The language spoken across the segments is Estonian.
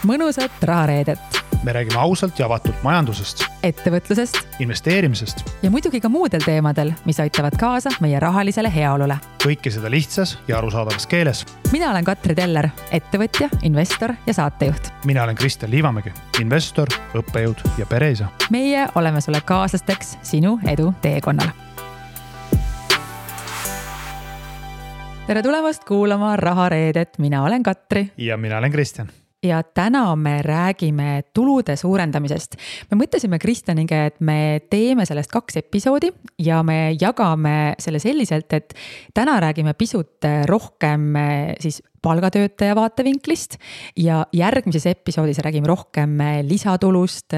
mõnusat rahareedet. Me räägime ausalt ja avatult majandusest, ettevõtlusest investeerimisest ja muidugi ka muudel teemadel, mis aitavad kaasa meie rahalisele heaolule. Kõike seda lihtsas ja arusaadavas keeles. Mina olen Katri Teller, ettevõtja, investor ja saatejuht. Mina olen Kristjan Liivamägi, investor, õppejõud ja pereisa. Meie oleme sulle kaaslasteks sinu edu teekonnal. Tere tulemast kuulama Rahareedet. Mina olen Katri. Ja mina olen Kristjan. Ja täna me räägime tulude suurendamisest. Me mõtlesime Kristjaniga, et me teeme sellest 2 episoodi ja me jagame selle selliselt, et täna räägime pisut rohkem siis palgatöötaja vaatevinklist ja järgmises episoodis räägime rohkem lisatulust,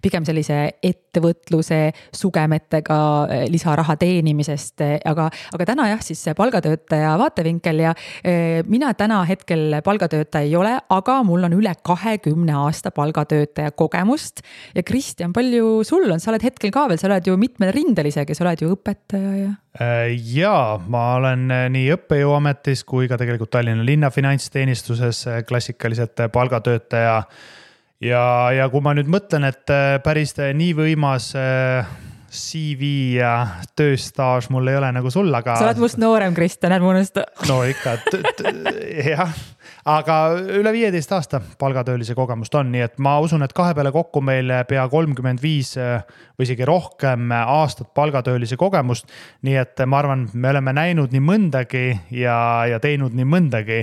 pigem sellise ettevõtluse sugemetega lisaraha teenimisest, aga täna jah, siis palgatöötaja vaatevinkel ja mina täna hetkel palgatöötaja ei ole, aga mul on üle 20 aasta palgatöötaja kogemust ja Kristjan, palju sul on? Sa oled hetkel ka veel, sa oled ju mitmel rindel isegi, sa oled ju õpetaja ja... Jaa, ma olen nii õppejõuametis kui ka tegelikult Tallinna linna finantsteenistuses klassikaliselt palgatöötaja. Ja kui ma nüüd mõtlen, et päris nii võimas CV ja tööstaaž mul ei ole nagu sul, aga... Sa oled must noorem, Kristjan, ärme unusta. No ikka, jah. Aga üle 15 aasta palgatöölise kogemust on, nii et ma usun, et 2 peale kokku meil pea 35 või isegi rohkem aastat palgatöölise kogemust. Nii et ma arvan, me oleme näinud nii mõndagi ja teinud nii mõndagi.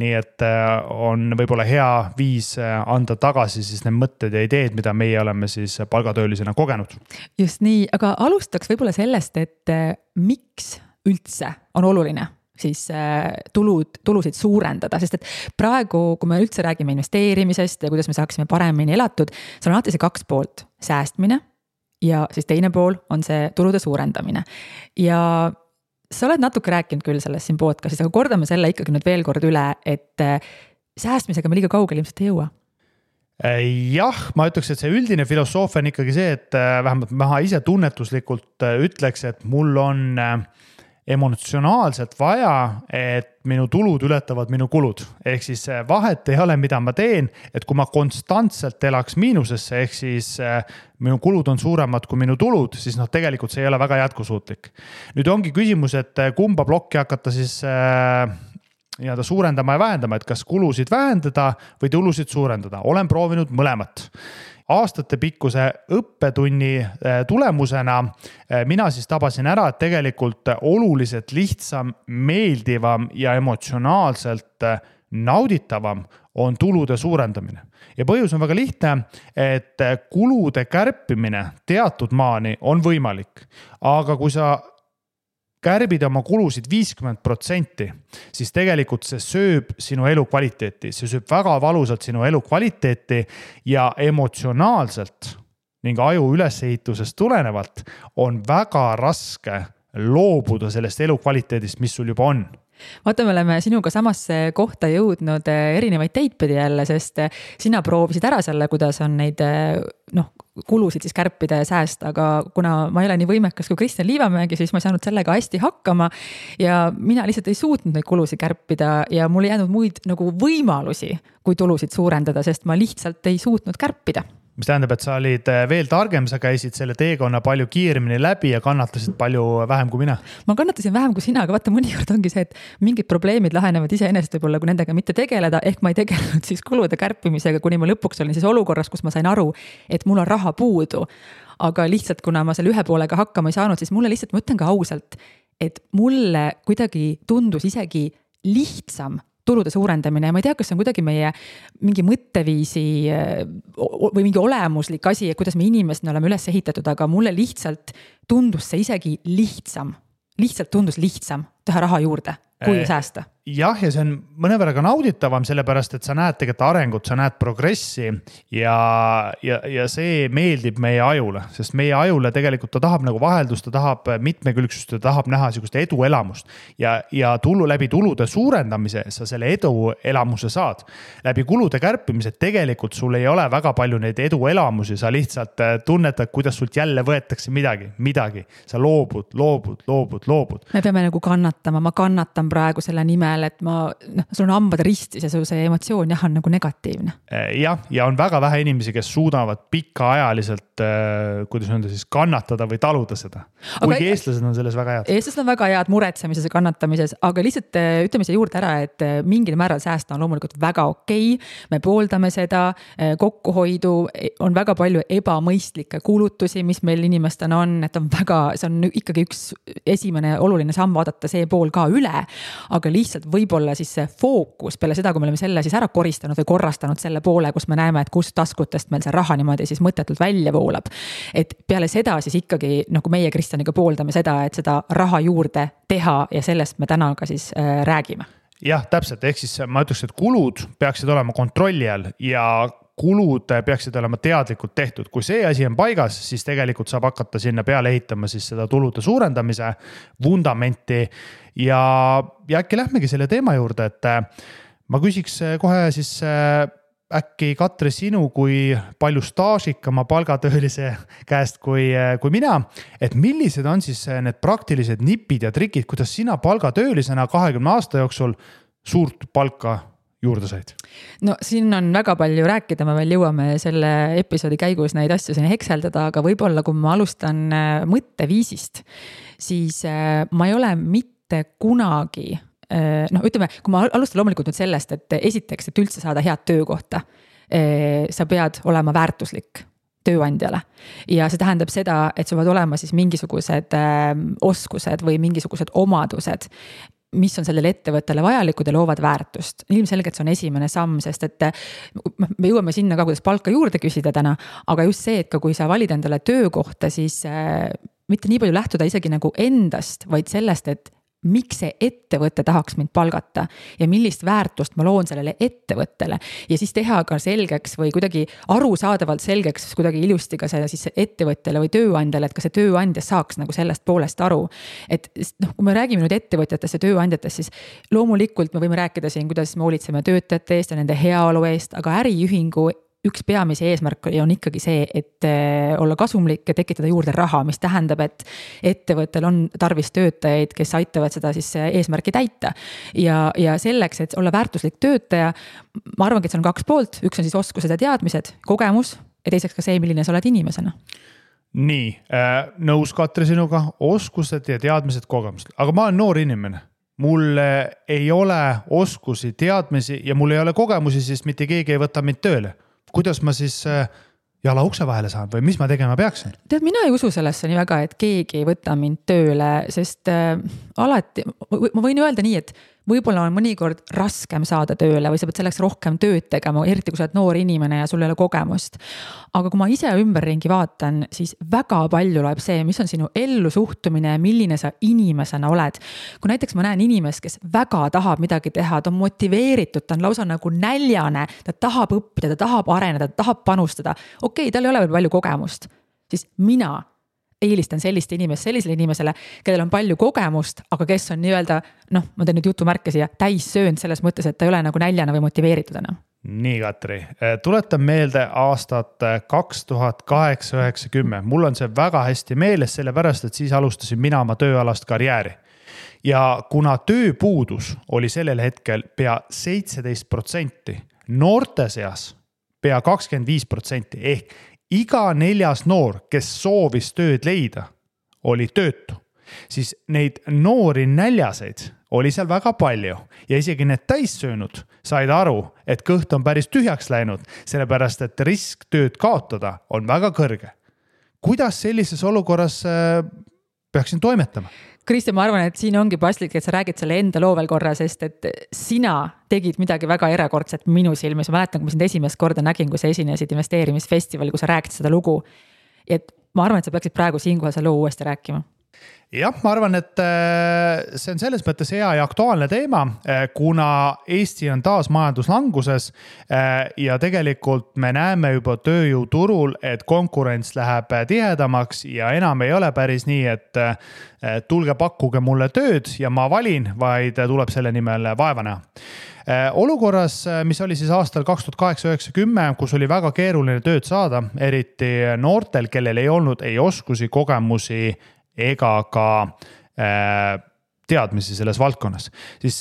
Nii et on võib-olla hea viis anda tagasi siis need mõtted ja ideed, mida meie oleme siis palgatöölisena kogenud. Just nii, aga alustaks võib-olla sellest, et miks üldse on oluline siis tulusid suurendada, sest et praegu, kui me üldse räägime investeerimisest ja kuidas me saaksime paremini elatud, see on alati see 2 poolt, säästmine ja siis teine pool on see tulude suurendamine. Ja sa oled natuke rääkinud küll sellest siin podcastis, aga kordame selle ikkagi nüüd veel kord üle, et säästmisega me liiga kaugel ilmselt ei jõua. Jah, ma ütleks, et see üldine filosoofia on ikkagi see, et vähemalt ma ise tunnetuslikult ütleks, et mul on emotsionaalselt vaja, et minu tulud ületavad minu kulud. Ehk siis vahet ei ole, mida ma teen, et kui ma konstantselt elaks miinusesse, ehk siis minu kulud on suuremad kui minu tulud, siis tegelikult see ei ole väga jätkusuutlik. Nüüd ongi küsimus, et kumba plokki hakata siis suurendama ja vähendama, et kas kulusid vähendada või tulusid suurendada. Olen proovinud mõlemat. Aastate pikkuse õppetunni tulemusena mina siis tabasin ära, et tegelikult oluliselt lihtsam, meeldivam ja emotsionaalselt nauditavam on tulude suurendamine. Ja põhjus on väga lihtne, et kulude kärpimine teatud maani on võimalik. Aga kui sa kärbid oma kulusid 50%, siis tegelikult see sööb sinu elu kvaliteeti. See sööb väga valusalt sinu elu kvaliteeti ja emotsionaalselt ning aju ülesehitusest tulenevalt on väga raske loobuda sellest elu kvaliteedist, mis sul juba on. Vaata, me oleme sinuga samasse kohta jõudnud erinevaid teidpidi jälle, sest sina proovisid ära selle, kuidas on neid kulusid siis kärpida ja säästa, aga kuna ma ei ole nii võimekas kui Kristjan Liivamägi, siis ma ei saanud sellega hästi hakkama ja mina lihtsalt ei suutnud neid kulusid kärpida ja mul ei jäänud muid nagu võimalusi, kui tulusid suurendada, sest ma lihtsalt ei suutnud kärpida. Mis tähendab, et sa olid veel targem, sa käisid selle teekonna palju kiiremini läbi ja kannatasid palju vähem kui mina. Ma kannatasin vähem kui sina, aga vaata mõnikord ongi see, et mingid probleemid lahenevad iseenesest võib-olla, kui nendega mitte tegeleda, ehk ma ei tegelenud siis kulude kärpimisega, kuni ma lõpuks olin siis olukorras, kus ma sain aru, et mul on raha puudu. Aga lihtsalt, kuna ma selle ühe poolega hakkama ei saanud, siis mulle lihtsalt, ma ütlen ka ausalt, et mulle kuidagi tundus isegi lihtsam tulude suurendamine ja ma ei tea, kas see on kuidagi meie mingi mõtteviisi või mingi olemuslik asi, kuidas me inimesena oleme üles ehitatud, aga mulle lihtsalt tundus see isegi lihtsam. Lihtsalt tundus lihtsam teha raha juurde, kui säästa. Jah, ja see on mõnevõrra ka nauditavam, sellepärast, et sa näed tegelikult arengut, sa näed progressi ja see meeldib meie ajule, sest meie ajule tegelikult ta tahab nagu vaheldust, ta tahab mitmekülgsust, ta tahab näha sellist eduelamust ja läbi tulude suurendamise sa selle eduelamuse saad. Läbi kulude kärpimise tegelikult sul ei ole väga palju neid eduelamusi, sa lihtsalt tunnetad, kuidas sult jälle võetakse midagi. Sa loobud. Me peame nagu kannatama kannatama, ma kannatan praegu selle nimel, et sul on hambad ristis ja see emotsioon jah on nagu negatiivne. Jah, ja on väga vähe inimesi, kes suudavad pikaajaliselt, kuidas öelda siis, kannatada või taluda seda. Kuigi eestlased on selles väga head. Eestlased on väga head muretsemises ja kannatamises, aga lihtsalt ütleme siia juurde ära, et mingil määral säästa on loomulikult väga okei. Me pooldame seda, kokkuhoidu, on väga palju ebamõistlikke kulutusi, mis meil inimestel on, et on väga, see on ikkagi üks esimene oluline samm vaadata see pool ka üle, aga lihtsalt võib-olla siis see fookus peale seda, kui me oleme selle siis ära koristanud või korrastanud selle poole, kus me näeme, et kust taskutest meil see raha niimoodi siis mõttetult välja voolab. Et peale seda siis ikkagi, nagu meie Kristjaniga pooldame seda, et seda raha juurde teha ja sellest me täna ka siis räägime. Jah, täpselt, ehk siis ma ütleks, et kulud peaksid olema kontrolli all ja kulud peaksid olema teadlikult tehtud. Kui see asi on paigas, siis tegelikult saab hakata sinna peale ehitama siis seda tulude suurendamise vundamenti ja äkki lähmegi selle teema juurde, et ma küsiks kohe siis äkki Katri sinu kui palju staažikama palgatöölise käest kui mina, et millised on siis need praktilised nipid ja trikid, kuidas sina palgatöölisena 20 aasta jooksul suurt palka juurde said? No siin on väga palju rääkida, me veel jõuame selle episoodi käigus neid asju siin hekseldada, aga võib-olla kui ma alustan mõtteviisist, siis ma ei ole mitte kunagi, ütleme, kui ma alustan loomulikult nüüd sellest, et esiteks, et üldse saada head töökohta, sa pead olema väärtuslik tööandjale ja see tähendab seda, et sul peavad olema siis mingisugused oskused või mingisugused omadused, mis on sellele ettevõttele vajalikud ja loovad väärtust. Ilmselgelt see on esimene samm, sest et me jõuame sinna ka, kuidas palka juurde küsida täna, aga just see, et ka kui sa valid endale töökohta, siis mitte nii palju lähtuda isegi nagu endast, vaid sellest, et miks see ettevõte tahaks mind palgata ja millist väärtust ma loon sellele ettevõttele ja siis teha ka selgeks või kuidagi arusaadavalt selgeks kuidagi ilusti ka see siis ettevõttele või tööandjale, et ka see tööandja saaks nagu sellest poolest aru. Et kui me räägime nüüd ettevõtjatest ja tööandjatest, siis loomulikult me võime rääkida siin, kuidas me hoolitseme töötajate eest ja nende heaolu eest, aga äriühingu üks peamise eesmärk on ikkagi see, et olla kasumlik ja tekitada juurde raha, mis tähendab, et ettevõttel on tarvis töötajaid, kes aitavad seda siis eesmärki täita. Ja selleks, et olla väärtuslik töötaja, ma arvangi, et see on 2 poolt. Üks on siis oskused ja teadmised, kogemus ja teiseks ka see, milline sa oled inimesena. Nii, nõus Katri sinuga, oskused ja teadmised, kogemused. Aga ma olen noor inimene. Mul ei ole oskusi, teadmisi ja mul ei ole kogemusi, siis mitte keegi ei võta mind tööle. Kuidas ma siis jala ukse vahele saan või mis ma tegema peaksin? Tead, mina ei usu sellesse nii väga, et keegi ei võta mind tööle, sest alati, ma võin öelda nii, et võib-olla on mõnikord raskem saada tööle või sa pead selleks rohkem tööd tegema, eriti kui sa oled noor inimene ja sul ei ole kogemust. Aga kui ma ise ümberringi vaatan, siis väga palju loeb see, mis on sinu ellu suhtumine ja milline sa inimesena oled. Kui näiteks ma näen inimest, kes väga tahab midagi teha, ta on motiveeritud, ta on lausa nagu näljane, ta tahab õppida, ta tahab areneda, ta tahab panustada. Okei, tal ei ole veel palju kogemust, siis mina eelistan sellisele inimesele, kellel on palju kogemust, aga kes on nii-öelda, ma teen nüüd jutumärke siia, täis söönud selles mõttes, et ta ei ole nagu näljana või motiveeritud enam. Nii, Katri, tuletan meelde aastat 2008-90. Mul on see väga hästi meeles, sellepärast, et siis alustasin mina oma tööalast karjääri. Ja kuna tööpuudus oli sellel hetkel pea 17%, noorte seas pea 25% ehk iga 4. noor, kes soovis tööd leida, oli töötu. Siis neid noori näljaseid oli seal väga palju ja isegi need täissöönud said aru, et kõht on päris tühjaks läinud, sellepärast et risk tööd kaotada on väga kõrge. Kuidas sellises olukorras peaksin toimetama? Kristjan, ma arvan, et siin ongi paslik, et sa räägid selle enda loo veel korra, sest et sina tegid midagi väga erakordset minu silmis. Ma mäletan, kui ma sind esimest korda nägin, kui sa esinesid investeerimisfestival, kui sa räägid seda lugu. Et ma arvan, et sa peaksid praegu siinkohal selle loo uuesti rääkima. Jah, ma arvan, et see on selles mõttes hea ja aktuaalne teema, kuna Eesti on taas majanduslanguses ja tegelikult me näeme juba tööjõuturul, et konkurents läheb tihedamaks ja enam ei ole päris nii, et tulge pakkuge mulle tööd ja ma valin, vaid tuleb selle nimel vaeva näha. Olukorras, mis oli siis aastal 2008-90, kus oli väga keeruline tööd saada, eriti noortel, kellel ei olnud ei oskusi, kogemusi ega ka teadmisi selles valdkonnas, siis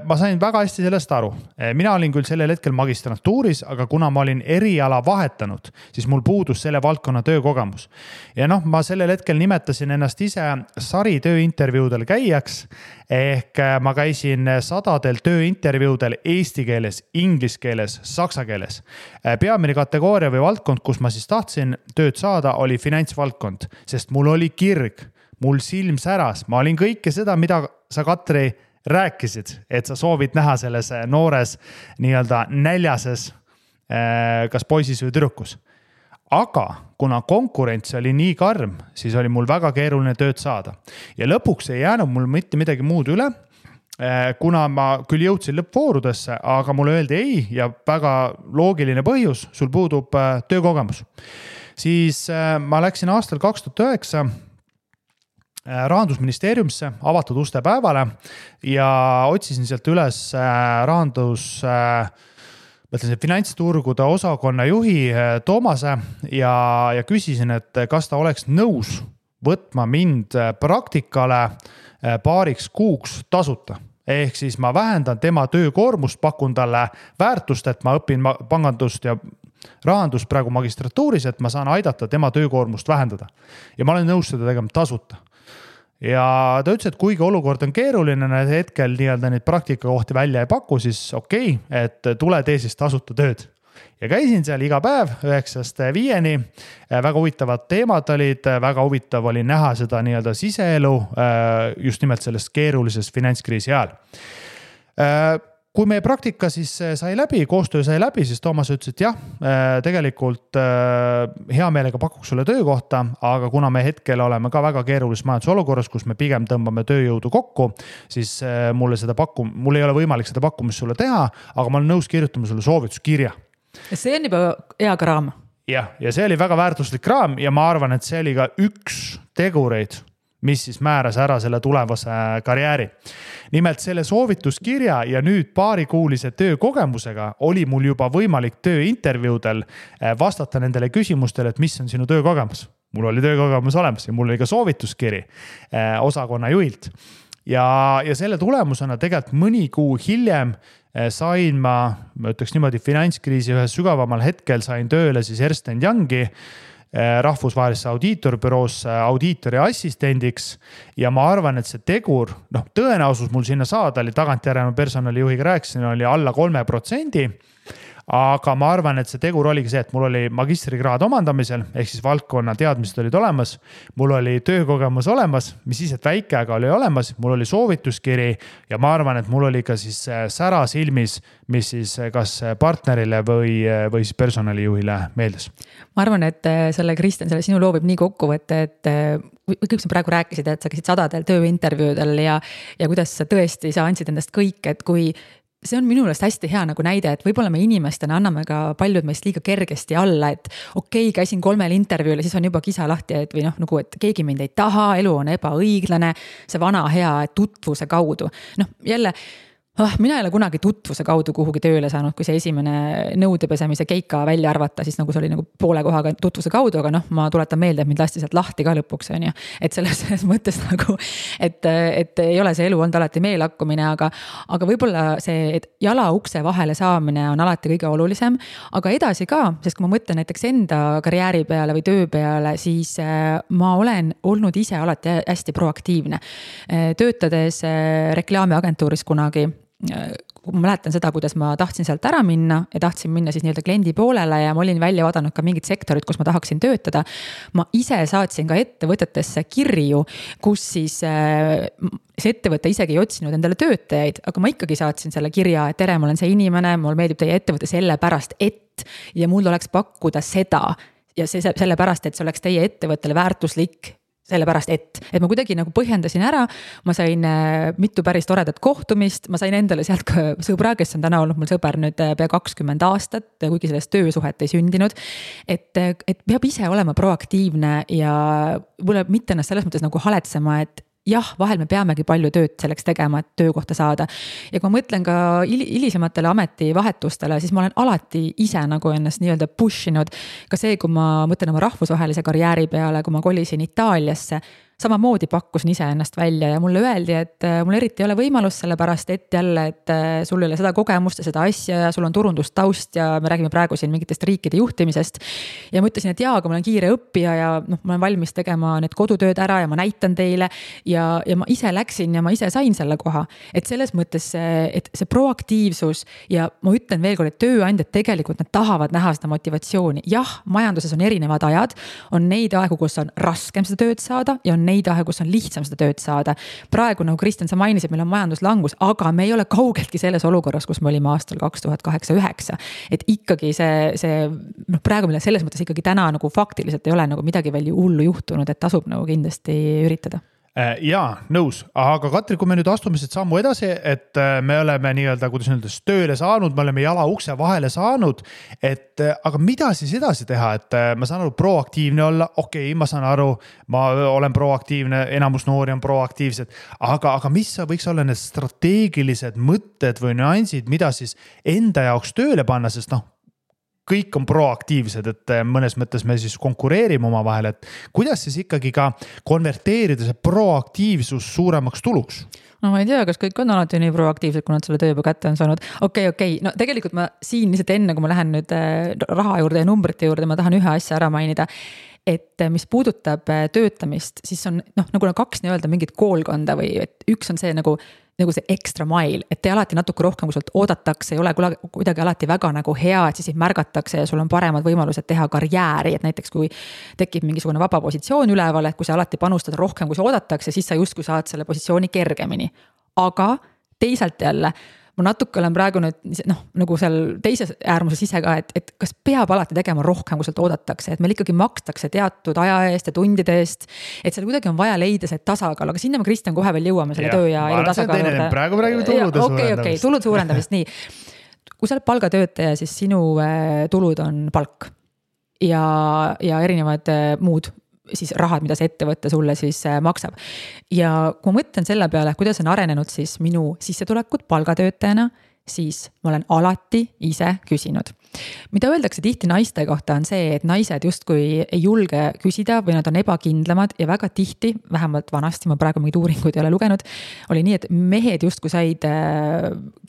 ma sain väga hästi sellest aru. Mina olin küll sellel hetkel magistrantuuris, aga kuna ma olin eriala vahetanud, siis mul puudus selle valdkonna töökogemus. Ja ma sellel hetkel nimetasin ennast ise sari tööintervjuudel käijaks, ehk ma käisin 100 tööintervjuudel eesti keeles, inglise keeles, saksa keeles. Peamine kategooria või valdkond, kus ma siis tahtsin tööd saada, oli finantsvaldkond, sest mul oli kirg. Mul silm säras, ma olin kõike seda, mida sa, Katri, rääkisid, et sa soovid näha selles noores nii-öelda näljases kas poisis või tüdrukus. Aga kuna konkurents oli nii karm, siis oli mul väga keeruline tööd saada. Ja lõpuks ei jäänud mul mitte midagi muud üle, kuna ma küll jõudsin lõppvoorudesse, aga mulle öeldi ei ja väga loogiline põhjus, sul puudub töökogemus. Siis ma läksin aastal 2009 Rahandusministeeriumisse avatud uste päevale ja otsisin sealt üles finantsturgude osakonna juhi Toomase ja küsisin, et kas ta oleks nõus võtma mind praktikale paariks kuuks tasuta. Ehk siis ma vähendan tema töökoormust, pakun talle väärtust, et ma õpin pangandust ja rahandust praegu magistratuuris, et ma saan aidata tema töökoormust vähendada. Ja ma olen nõus seda tegema tasuta. Ja ta ütles, et kuigi olukord on keeruline, hetkel nii-öelda neid praktikakohti välja ei paku, siis okei, et tule tee siis tasuta tööd. Ja käisin seal iga päev 9-5, väga huvitavad teemad olid, väga huvitav oli näha seda nii-öelda siseelu just nimelt selles keerulises finantskriisi ajal. Kui meie praktika siis sai läbi, koostöö sai läbi, siis Toomas ütles, et jah, tegelikult hea meelega pakuks sulle töökohta, aga kuna me hetkel oleme ka väga keerulises majandusolukorras, kus me pigem tõmbame tööjõudu kokku, siis mul ei ole võimalik seda pakkumist sulle teha, aga ma olen nõus kirjutama sulle soovituskirja. See on juba hea kraam. Ja see oli väga väärtuslik kraam ja ma arvan, et see oli ka üks tegureid, mis siis määras ära selle tulevase karjääri. Nimelt selle soovituskirja ja nüüd paarikuulise töökogemusega oli mul juba võimalik tööintervjuudel vastata nendele küsimustele, et mis on sinu töökogemus. Mul oli töökogemus olemas ja mul oli ka soovituskiri osakonna juhilt. Ja selle tulemusena tegelikult mõni kuu hiljem sain ma ütleks niimoodi finantskriisi ühes sügavamal hetkel sain tööle siis Ernst & Youngi rahvusvahelisse audiitorbüroosse audiitori assistendiks ja ma arvan, et see tegur, tõenäosus mul sinna saada oli tagantjärele personalijuhiga rääkisin, oli alla 3%, aga ma arvan, et see tegur oligi see, et mul oli magistrikraad omandamisel, ehk siis valdkonna teadmised olid olemas, mul oli töökogemus olemas, mis siis, et väike, aga oli olemas, mul oli soovituskiri ja ma arvan, et mul oli ka siis sära silmis, mis siis kas partnerile või siis personalijuhile meeldis. Ma arvan, et Kristjan, selle sinu loo võib nii kokku võtta, et kõik sa praegu rääkisid, et sa käisid 100 tööintervjuudel ja kuidas sa tõesti sa andsid endast kõik, et kui see on minu meelest hästi hea nagu näide, et võib-olla me inimestena anname ka paljud meist liiga kergesti alla, et okei, käisin 3 intervjuul ja siis on juba kisa lahti, et või nagu, et keegi mind ei taha, elu on ebaõiglane, see vana hea tutvuse kaudu. Jälle, mina ei ole kunagi tutvuse kaudu kuhugi tööle saanud, kui see esimene nõudepesemise keika välja arvata, siis nagu see oli nagu poole kohaga tutvuse kaudu, aga ma tuletan meelde, et mind lasti sealt lahti ka lõpuks, on ju. Et selles mõttes nagu, et ei ole see elu olnud alati meelakkumine, aga võib-olla see, et jala ukse vahele saamine on alati kõige olulisem, aga edasi ka, sest kui ma mõtlen näiteks enda karjääri peale või töö peale, siis ma olen olnud ise alati hästi proaktiivne. Töötades reklaamiagentuuris kunagi, kui ma mäletan seda, kuidas ma tahtsin sealt ära minna ja tahtsin minna siis nii-öelda kliendi poolele ja ma olin välja vaadanud ka mingid sektorid, kus ma tahaksin töötada. Ma ise saatsin ka ettevõtetesse kirju, kus siis see ettevõte isegi ei otsinud endale töötajaid, aga ma ikkagi saatsin selle kirja, et tere, ma olen see inimene, mul meeldib teie ettevõte sellepärast, et ja mul oleks pakkuda seda ja sellepärast, et see oleks teie ettevõttele väärtuslik sellepärast, et ma kuidagi nagu põhjendasin ära, ma sain mitu päris toredat kohtumist, ma sain endale sealt ka sõbra, kes on täna olnud mul sõber nüüd pea 20 aastat, kuigi sellest töösuhet ei sündinud, et peab ise olema proaktiivne ja mulle mitte ennast selles mõttes nagu haletsema, et jah, vahel me peamegi palju tööd selleks tegema, et töökohta saada. Ja kui ma mõtlen ka hilisematele ametivahetustele, siis ma olen alati ise nagu ennast nii-öelda pushinud. Ka see, kui ma mõtlen oma rahvusvahelise karjääri peale, kui ma kolisin Itaaliasse, samamoodi pakkusin ise ennast välja ja mulle öeldi, et mul eriti ei ole võimalust sellepärast, et jälle, et sul ei ole seda kogemust ja seda asja ja sul on turundustaust ja me räägime praegu siin mingitest riikide juhtimisest. Ja ma ütlesin, et jaa, aga ma olen kiire õppija ja ma olen valmis tegema need kodutööd ära ja ma näitan teile ja ma ise läksin ja ma ise sain selle koha. Et selles mõttes, et see proaktiivsus ja ma ütlen veel kord, et tööandjad tegelikult nad tahavad näha seda motivatsiooni. Jah, majanduses on erinevad ajad, on neid aegu, kus on raskem seda tööd saada ja on neid aegu, kus on lihtsam seda tööd saada. Praegu, nagu Kristjan, sa mainisid, meil on majanduslangus, aga me ei ole kaugeltki selles olukorras, kus me olime aastal 2008-2009. Et ikkagi praegu meil selles mõttes ikkagi täna nagu faktiliselt ei ole nagu midagi veel hullu juhtunud, et tasub nagu kindlasti üritada. Jaa, nõus, aga Katri, kui me nüüd astume siit sammu edasi, et me oleme nii-öelda, kuidas öeldes, tööle saanud, me oleme jala ukse vahele saanud, et aga mida siis edasi teha, et ma saan aru proaktiivne olla, okei, ma saan aru, ma olen proaktiivne, enamus noori on proaktiivsed, aga mis võiks olla need strateegilised mõtted või nüansid, mida siis enda jaoks tööle panna, sest kõik on proaktiivsed, et mõnes mõttes me siis konkureerime oma vahel, et kuidas siis ikkagi ka konverteerida see proaktiivsus suuremaks tuluks? No ma ei tea, kas kõik on alati nii proaktiivsed, kui nad selle töö juba kätte on saanud. Okei. No tegelikult ma siin lihtsalt enne, kui ma lähen nüüd raha juurde ja numbrite juurde, ma tahan ühe asja ära mainida. Et mis puudutab töötamist, siis on nagu kaks nii-öelda mingit koolkonda või et üks on see nagu see extra mile, et te alati natuke rohkem, kui sult oodatakse, ei ole kuidagi alati väga nagu hea, et siis märgatakse ja sul on paremad võimalused teha karjääri, et näiteks kui tekib mingisugune vaba positsioon üleval, et kui sa alati panustad rohkem, kui sa oodatakse, siis sa justkui saad selle positsiooni kergemini. Aga teisalt jälle, ma natuke olen praegu nüüd nagu seal teises äärmuses ise ka, et kas peab alati tegema rohkem, kui sealt oodatakse, et meil ikkagi makstakse teatud aja eest ja tundide eest, et seal kuidagi on vaja leida see tasakaal, aga sinna me Kristjan kohe veel jõuame selle töö ja elu tasakaalu juurde. Praegu räägime tulude suurendamist. Okei, tulude suurendamist, nii. Kui sa oled palgatöötaja, siis sinu tulud on palk ja erinevad muud siis rahad, mida see ettevõtte sulle siis maksab. Ja kui ma mõtlen selle peale, kuidas on arenenud siis minu sissetulekut palgatöötajana, siis ma olen alati ise küsinud. Mida öeldakse tihti naiste kohta on see, et naised justkui ei julge küsida või nad on ebakindlamad ja väga tihti, vähemalt vanasti, ma praegu mingid uuringuid ei ole lugenud, oli nii, et mehed justkui said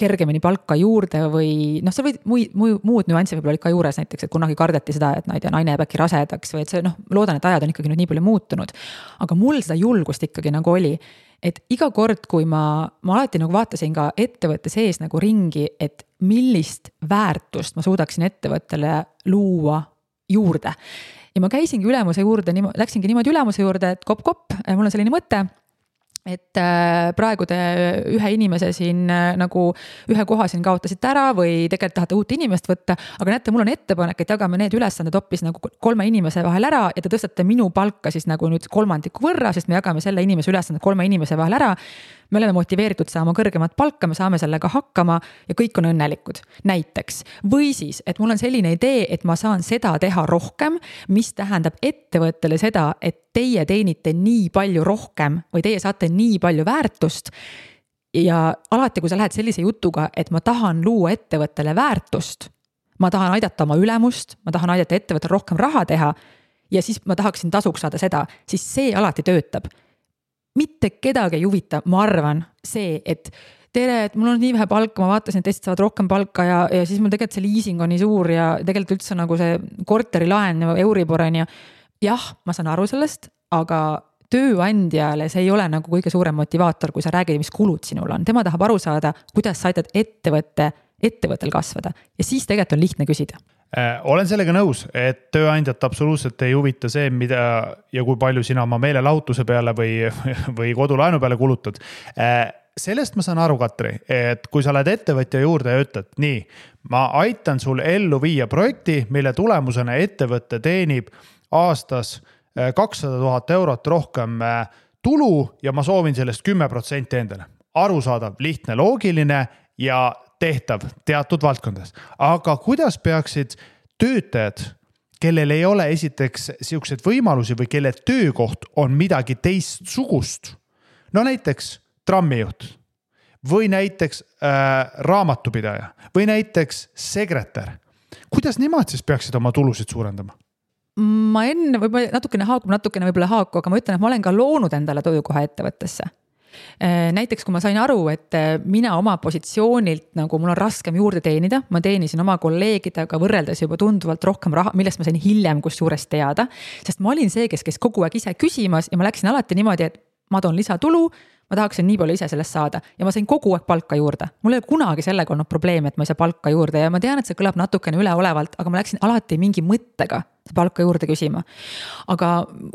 kergemini palka juurde või see võid muud nüansi võib-olla olid ka juures näiteks, et kunagi kardeti seda, et naine jääb äkki rasedaks või et see loodan, et ajad on ikkagi nüüd nii palju muutunud. Aga mul seda julgust ikkagi nagu oli, et iga kord, kui ma alati nagu vaatasin ka ettevõtte sees nagu ringi, et millist väärtust ma suudaksin ettevõttele luua juurde. Ja ma käisingi ülemuse juurde, läksingi niimoodi ülemuse juurde, et kopp, mul on selline mõte, et praegu te ühe inimese siin nagu ühe koha siin kaotasite ära või tegelikult tahate uut inimest võtta, aga näete, mul on ettepanek, et jagame need ülesanded hoopis nagu 3 inimese vahel ära ja te tõstate minu palka siis nagu nüüd 3 võrra, sest me jagame selle inimese ülesanded 3 inimese vahel ära. Me oleme motiveeritud saama kõrgemat palka, me saame sellega hakkama ja kõik on õnnelikud. Näiteks. Või siis, et mul on selline idee, et ma saan seda teha rohkem, mis tähendab ettevõttele seda, et teie teenite nii palju rohkem või teie saate nii palju väärtust. Ja alati, kui sa lähed sellise jutuga, et ma tahan luua ettevõttele väärtust, ma tahan aidata oma ülemust, ma tahan aidata ettevõttele rohkem raha teha ja siis ma tahaksin tasuks saada seda, siis see alati töötab. Mitte kedagi ei huvita, ma arvan, see, et tere, et mul on nii vähe palka, ma vaatasin, et teised saavad rohkem palka ja siis mul tegelikult see leasing on nii suur ja tegelikult üldse nagu see korterilaen Euribor on ja jah, ma saan aru sellest, aga tööandjale see ei ole nagu kõige suurem motivaator, kui sa räägid, mis kulud sinul on. Tema tahab aru saada, kuidas sa aitad ettevõttel kasvada ja siis tegelikult on lihtne küsida. Olen sellega nõus, et tööandjat absoluutselt ei huvita see, mida ja kui palju sina oma meelelahutuse peale või kodulaenu peale kulutad. Sellest ma saan aru, Katri, et kui sa oled ettevõtja juurde ja ütled, nii, ma aitan sul ellu viia projekti, mille tulemusena ettevõtte teenib aastas 200 000 eurot rohkem tulu ja ma soovin sellest 10% endale. Arusaadav, lihtne, loogiline ja tehtav teatud valdkondades. Aga kuidas peaksid töötajad, kellel ei ole esiteks siukseid võimalusi või kelle töökoht on midagi teistsugust, no näiteks trammijuht või näiteks raamatupidaja või näiteks sekretär, kuidas nemad siis peaksid oma tulusid suurendama? ma enne võib-olla natukene haaku, aga ma ütlen, et ma olen ka loonud endale töökoha ettevõttesse. Näiteks kui ma sain aru, et mina oma positsioonilt nagu mul on raskem juurde teenida, ma teenisin oma kolleegidega võrreldes juba tunduvalt rohkem raha, millest ma sain hiljem kusjuures teada, sest ma olin see, kes kogu aeg ise küsimas ja ma läksin alati niimoodi, et ma toon lisatulu, ma tahaksin nii palju ise sellest saada ja ma sain kogu aeg palka juurde. Mul ei ole kunagi sellega olnud probleemi, et ma ei saa palka juurde ja ma tean, et see kõlab natukene üleolevalt, aga ma läksin alati mingi mõttega palka juurde küsima. Aga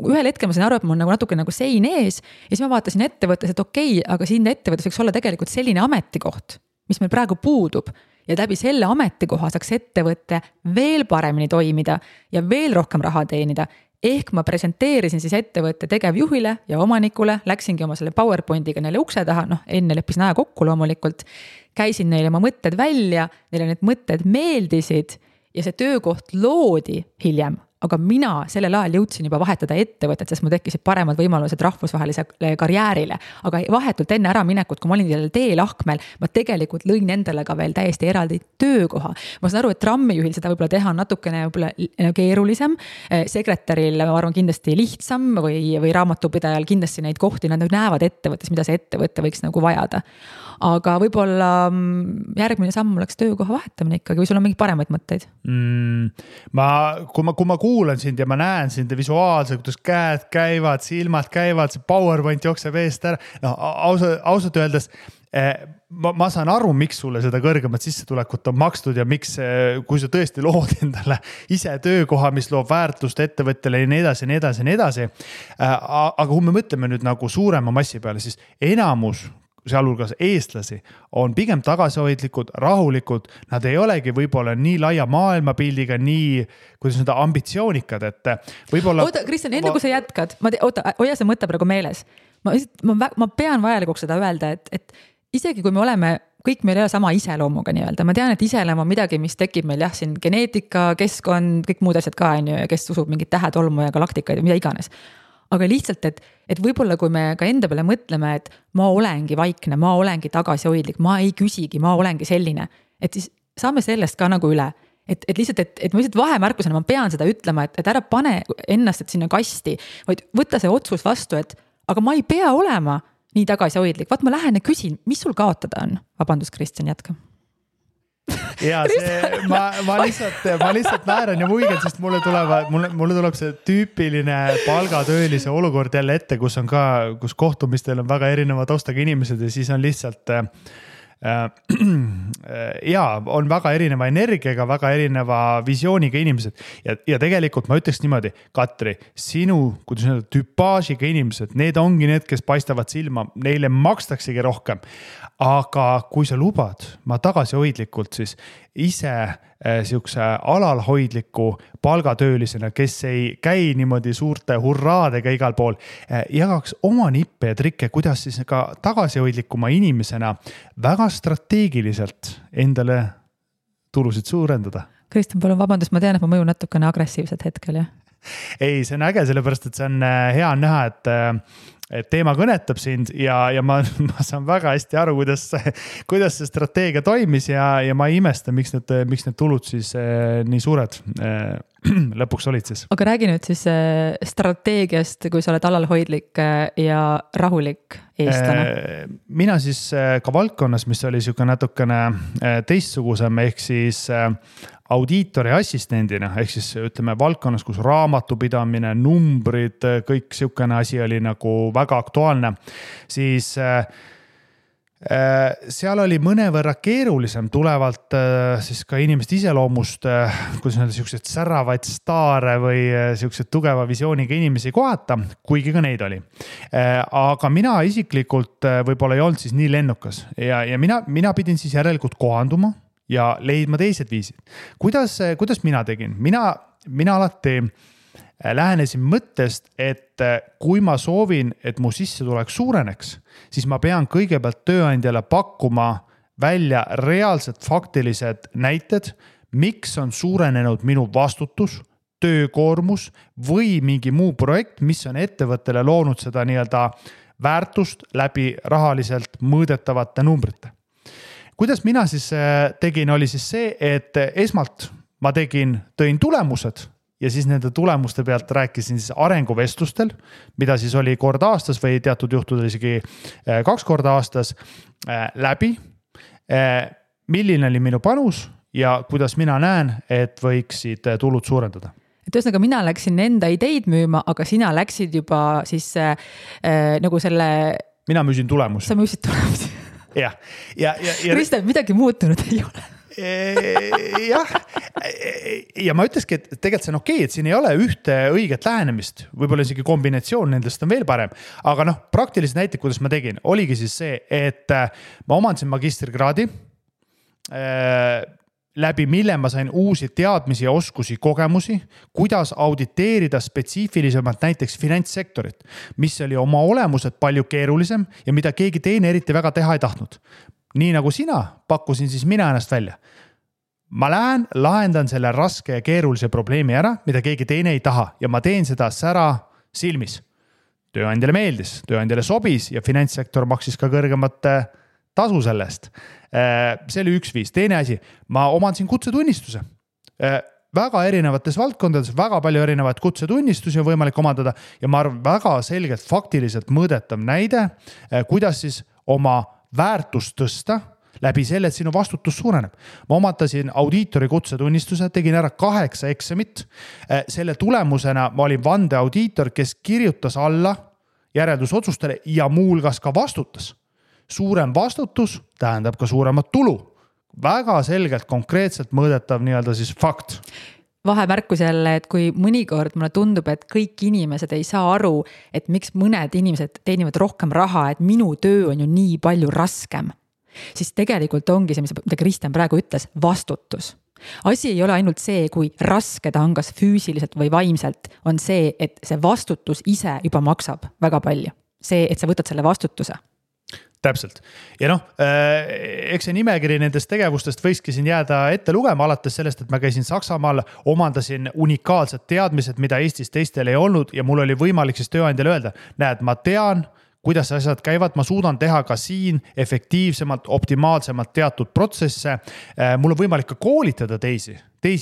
ühel hetkel ma sain aru, et mul nagu natuke nagu sein ees ja siis ma vaatasin ettevõttes, et okei, aga siin ettevõttes võiks olla tegelikult selline ametikoht, mis meil praegu puudub ja läbi selle ametikoha saaks ettevõtte veel paremini toimida ja veel rohkem raha teenida. Ehk ma presenteerisin siis ettevõtte tegevjuhile ja omanikule, läksingi oma selle PowerPointiga neile ukse taha, enne leppisin aja kokku loomulikult, käisin neile oma mõtted välja, neile need mõtted meeldisid ja see töökoht loodi hiljem. Aga mina sellel ajal jõudsin juba vahetada ettevõtet, sest mul tekkisid paremad võimalused rahvusvahelisele karjäärile. Aga vahetult enne ära minekut, kui ma olin sellel teelahkmel, ma tegelikult lõin endale ka veel täiesti eraldi töökoha. Ma saan aru, et trammijuhil seda võib-olla teha natukene keerulisem. Sekretäril, ma arvan, kindlasti lihtsam või raamatupidajal kindlasti neid kohti, nad näevad ettevõttes, mida see ettevõte võiks nagu vajada. Aga võib-olla järgmine samm oleks töökoha vahetamine ikkagi, või sul on mingi paremaid mõtteid? Kui ma kuulan sind ja ma näen sind visuaalselt, kuidas käed käivad, silmad käivad, see PowerPoint jookseb eest ära. Ausalt öeldes, ma saan aru, miks sulle seda kõrgemat sissetulekut on makstud ja miks, kui sa tõesti lood endale ise töökoha, mis loob väärtust ettevõttele ja nii edasi. Aga kui me mõtleme nüüd nagu suurema massi peale, siis enamus sealhulgas eestlasi on pigem tagasihoidlikud, rahulikud, nad ei olegi võib-olla nii laia maailmapildiga, nii, kuidas seda ambitsioonikad, et võib-olla... Oota, Kristjan, enne kui sa jätkad, hoia see mõte praegu meeles. Ma pean vajalikuks seda öelda, et isegi kui me oleme, kõik meil ei ole sama iseloomuga nii-öelda, ma tean, et iseloom on midagi, mis tekib meil siin geneetika, keskkond, kõik muud asjad ka, ja kes usub mingit tähetolmu ja galaktikaid ja mida iganes. Aga lihtsalt, et võib-olla kui me ka enda peale mõtleme, et ma olengi vaikne, ma olengi tagasihoidlik, ma ei küsigi, ma olengi selline, et siis saame sellest ka nagu üle. Et lihtsalt, et ma lihtsalt vahemärkusena, ma pean seda ütlema, et ära pane ennast sinna kasti, vaid võtta see otsus vastu, et aga ma ei pea olema nii tagasihoidlik. Vaat ma lähen ja küsin, mis sul kaotada on? Vabandust, Kristjan, jätka. Ja ma lihtsalt naeran ja muigen, sest mulle tuleb see tüüpiline palgatöölise olukord jälle ette, kus kohtumistel on väga erineva taustaga inimesed ja siis on lihtsalt on väga erineva energiaga, väga erineva visiooniga inimesed ja tegelikult ma ütleks niimoodi, Katri, sinu, kuidas öelda, tüpaažiga inimesed, need ongi need, kes paistavad silma, neile makstaksegi rohkem. Aga kui sa lubad, ma tagasihoidlikult siis ise siukse alalhoidliku palgatöölisena, kes ei käi niimoodi suurte hurraadega igal pool, jagaks oma nippe ja trikke, kuidas siis ka tagasihoidlikuma inimesena väga strateegiliselt endale tulusid suurendada. Kristjan, palun vabandust, ma tean, et ma mõjun natukene agressiivselt hetkel, jah? Ei, see on äge, sellepärast, et see on hea näha, et teema kõnetab sind ja ma saan väga hästi aru, kuidas see strateegia toimis ja ma ei imesta, miks need tulud siis nii suured lõpuks olid siis. Aga räägi nüüd siis strateegiast, kui sa oled alalhoidlik ja rahulik eestlane. Mina siis ka valdkonnas, mis oli siuke natukene teistsugusem, ehk siis audiitori assistendina, ehk siis ütleme valdkonnas, kus raamatupidamine, numbrid, kõik siukene asi oli nagu väga aktuaalne, siis seal oli mõnevõrra keerulisem tulevalt siis ka inimeste iseloomust, kuidas öelda, siuksed säravaid staare või siuksed tugeva visiooniga inimesi kohata, kuigi ka neid oli. Aga mina isiklikult võib-olla ei olnud siis nii lennukas ja mina pidin siis järelikult kohanduma ja leidma teised viisid. Kuidas mina tegin? Mina alati lähenesin mõttest, et kui ma soovin, et mu sissetulek suureneks, siis ma pean kõigepealt tööandjale pakkuma välja reaalsed faktilised näited, miks on suurenenud minu vastutus, töökoormus või mingi muu projekt, mis on ettevõttele loonud seda nii-öelda väärtust läbi rahaliselt mõõdetavate numbrite. Kuidas mina siis tegin, oli siis see, et esmalt ma tõin tulemused ja siis nende tulemuste pealt rääkisin siis arenguvestlustel, mida siis oli kord aastas või teatud juhtudel isegi 2 korda aastas läbi, milline oli minu panus ja kuidas mina näen, et võiksid tulud suurendada. Et ühesõnaga mina läksin enda ideid müüma, aga sina läksid juba siis nagu selle... Mina müüsin tulemusi. Sa müüsid tulemusi. Ja Kristjan, midagi muutunud ei ole. Jah, ja ma ütleski, et tegelikult see on okei, et siin ei ole ühte õiget lähenemist, võib-olla isegi kombinatsioon nendest on veel parem, aga praktilised näited, kuidas ma tegin, oligi siis see, et ma omandasin magistrikraadi, läbi mille ma sain uusi teadmisi ja oskusi, kogemusi, kuidas auditeerida spetsiifilisemalt näiteks finantssektorit, mis oli oma olemuselt palju keerulisem ja mida keegi teine eriti väga teha ei tahtnud. Nii nagu sina, pakkusin siis mina ennast välja. Ma lähen, lahendan selle raske ja keerulise probleemi ära, mida keegi teine ei taha ja ma teen seda sära silmis. Tööandjale meeldis, tööandjale sobis ja finantssektor maksis ka kõrgemat tasu sellest. See oli üks viis. Teine asi, ma omandasin kutsetunnistuse. Väga erinevates valdkondades, väga palju erinevaid kutsetunnistusi on võimalik omandada ja ma arvan väga selgelt faktiliselt mõõdetav näide, kuidas siis oma väärtust tõsta läbi selle, et sinu vastutus suureneb. Ma omandasin audiitori kutsetunnistuse, tegin ära 8 eksamit. Selle tulemusena ma olin vandeaudiitor, kes kirjutas alla järeldusotsustele ja muulgas ka vastutas. Suurem vastutus tähendab ka suuremat tulu. Väga selgelt, konkreetselt mõõdetav nii-öelda siis fakt. Vahemärkus jälle, et kui mõnikord mulle tundub, et kõik inimesed ei saa aru, et miks mõned inimesed teenivad rohkem raha, et minu töö on ju nii palju raskem, siis tegelikult ongi see, mida Kristjan praegu ütles, vastutus. Asi ei ole ainult see, kui raske ta on kas füüsiliselt või vaimselt, on see, et see vastutus ise juba maksab väga palju. See, et sa võtad selle vastutuse. Täpselt. Ja eks see nimekiri nendest tegevustest võikski siin jääda ette lugema, alates sellest, et ma käisin Saksamaal, omandasin unikaalsed teadmised, mida Eestis teistel ei olnud ja mul oli võimalik siis tööandjale öelda, näed, ma tean, kuidas asjad käivad, ma suudan teha ka siin efektiivsemalt, optimaalsemalt teatud protsesse. Mul on võimalik ka koolitada teisi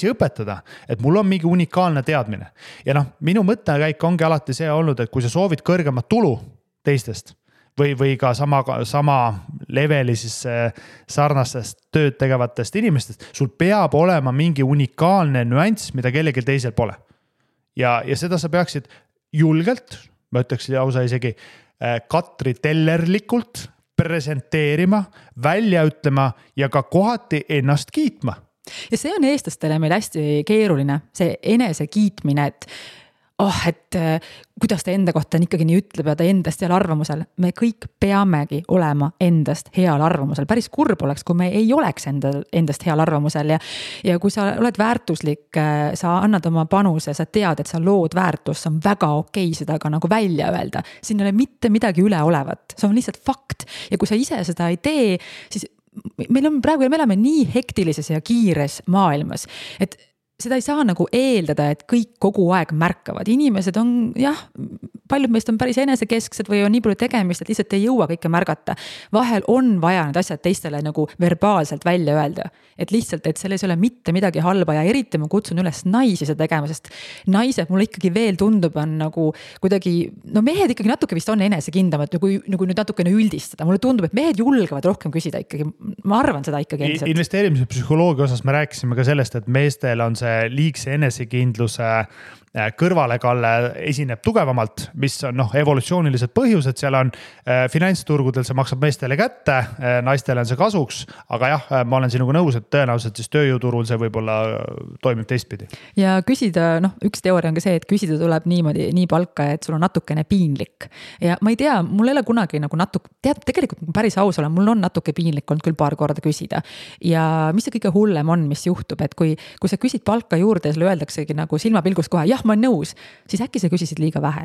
õpetada, et mul on mingi unikaalne teadmine. Ja minu mõttekäik ongi alati see olnud, et kui sa soovid kõrgemat tulu teistest, või ka sama leveli siis sarnastest tööd tegevatest inimestest, sul peab olema mingi unikaalne nüanss, mida kellelgi teisel pole. Ja seda sa peaksid julgelt, ma ütleks lausa isegi Katri tellerlikult presenteerima, välja ütlema ja ka kohati ennast kiitma. Ja see on eestlastele meil hästi keeruline, see enese kiitmine, et kuidas ta enda kohta ikkagi nii ütleb ja ta endast heal arvamusel. Me kõik peamegi olema endast heal arvamusel. Päris kurb oleks, kui me ei oleks endast heal arvamusel ja kui sa oled väärtuslik, sa annad oma panuse, sa tead, et sa lood väärtust, see on väga okei seda ka nagu välja öelda. Siin ei ole mitte midagi üle olevat, see on lihtsalt fakt ja kui sa ise seda ei tee, siis me elame nii hektilises ja kiires maailmas, et seda ei saa nagu eeldada, et kõik kogu aeg märkavad. Inimesed on, paljud meist on päris enesekesksed või on nii palju tegemist, et lihtsalt ei jõua kõike märgata. Vahel on vaja need asjad teistele nagu verbaalselt välja öelda. Et lihtsalt, et selles ei ole mitte midagi halba ja eriti ma kutsun üles naisi seda tegema, sest naised mulle ikkagi veel tundub on nagu kuidagi, mehed ikkagi natuke vist on enesekindlamad, kui nüüd natukene üldistada. Mulle tundub, et mehed julgevad rohkem küsida ikkagi. Ma arvan seda ikkagi endiselt. Investeerimise psühholoogia osas me rääkisime ka sellest, et meestel on see liigse enesekindluse kõrvalekalle esineb tugevamalt, mis on evolutsioonilised põhjused, seal on finantsturgudel, see maksab meestele kätte, naistele on see kasuks, aga ma olen sinuga nõus, et tõenäoliselt siis tööjõuturul see võib-olla toimib teistpidi. Ja küsida, üks teooria on ka see, et küsida tuleb niimoodi, nii palka, et sul on natukene piinlik. Ja ma ei tea, mul ei ole kunagi tegelikult päris aus olen, mul on natuke piinlik olnud küll paar korda küsida. Ja mis see kõige hullem on, mis juhtub, et kui sa küsid palka juurde ja sulle öeldaksegi nagu silmapilgust kohe, ma olen nõus, siis äkki sa küsisid liiga vähe.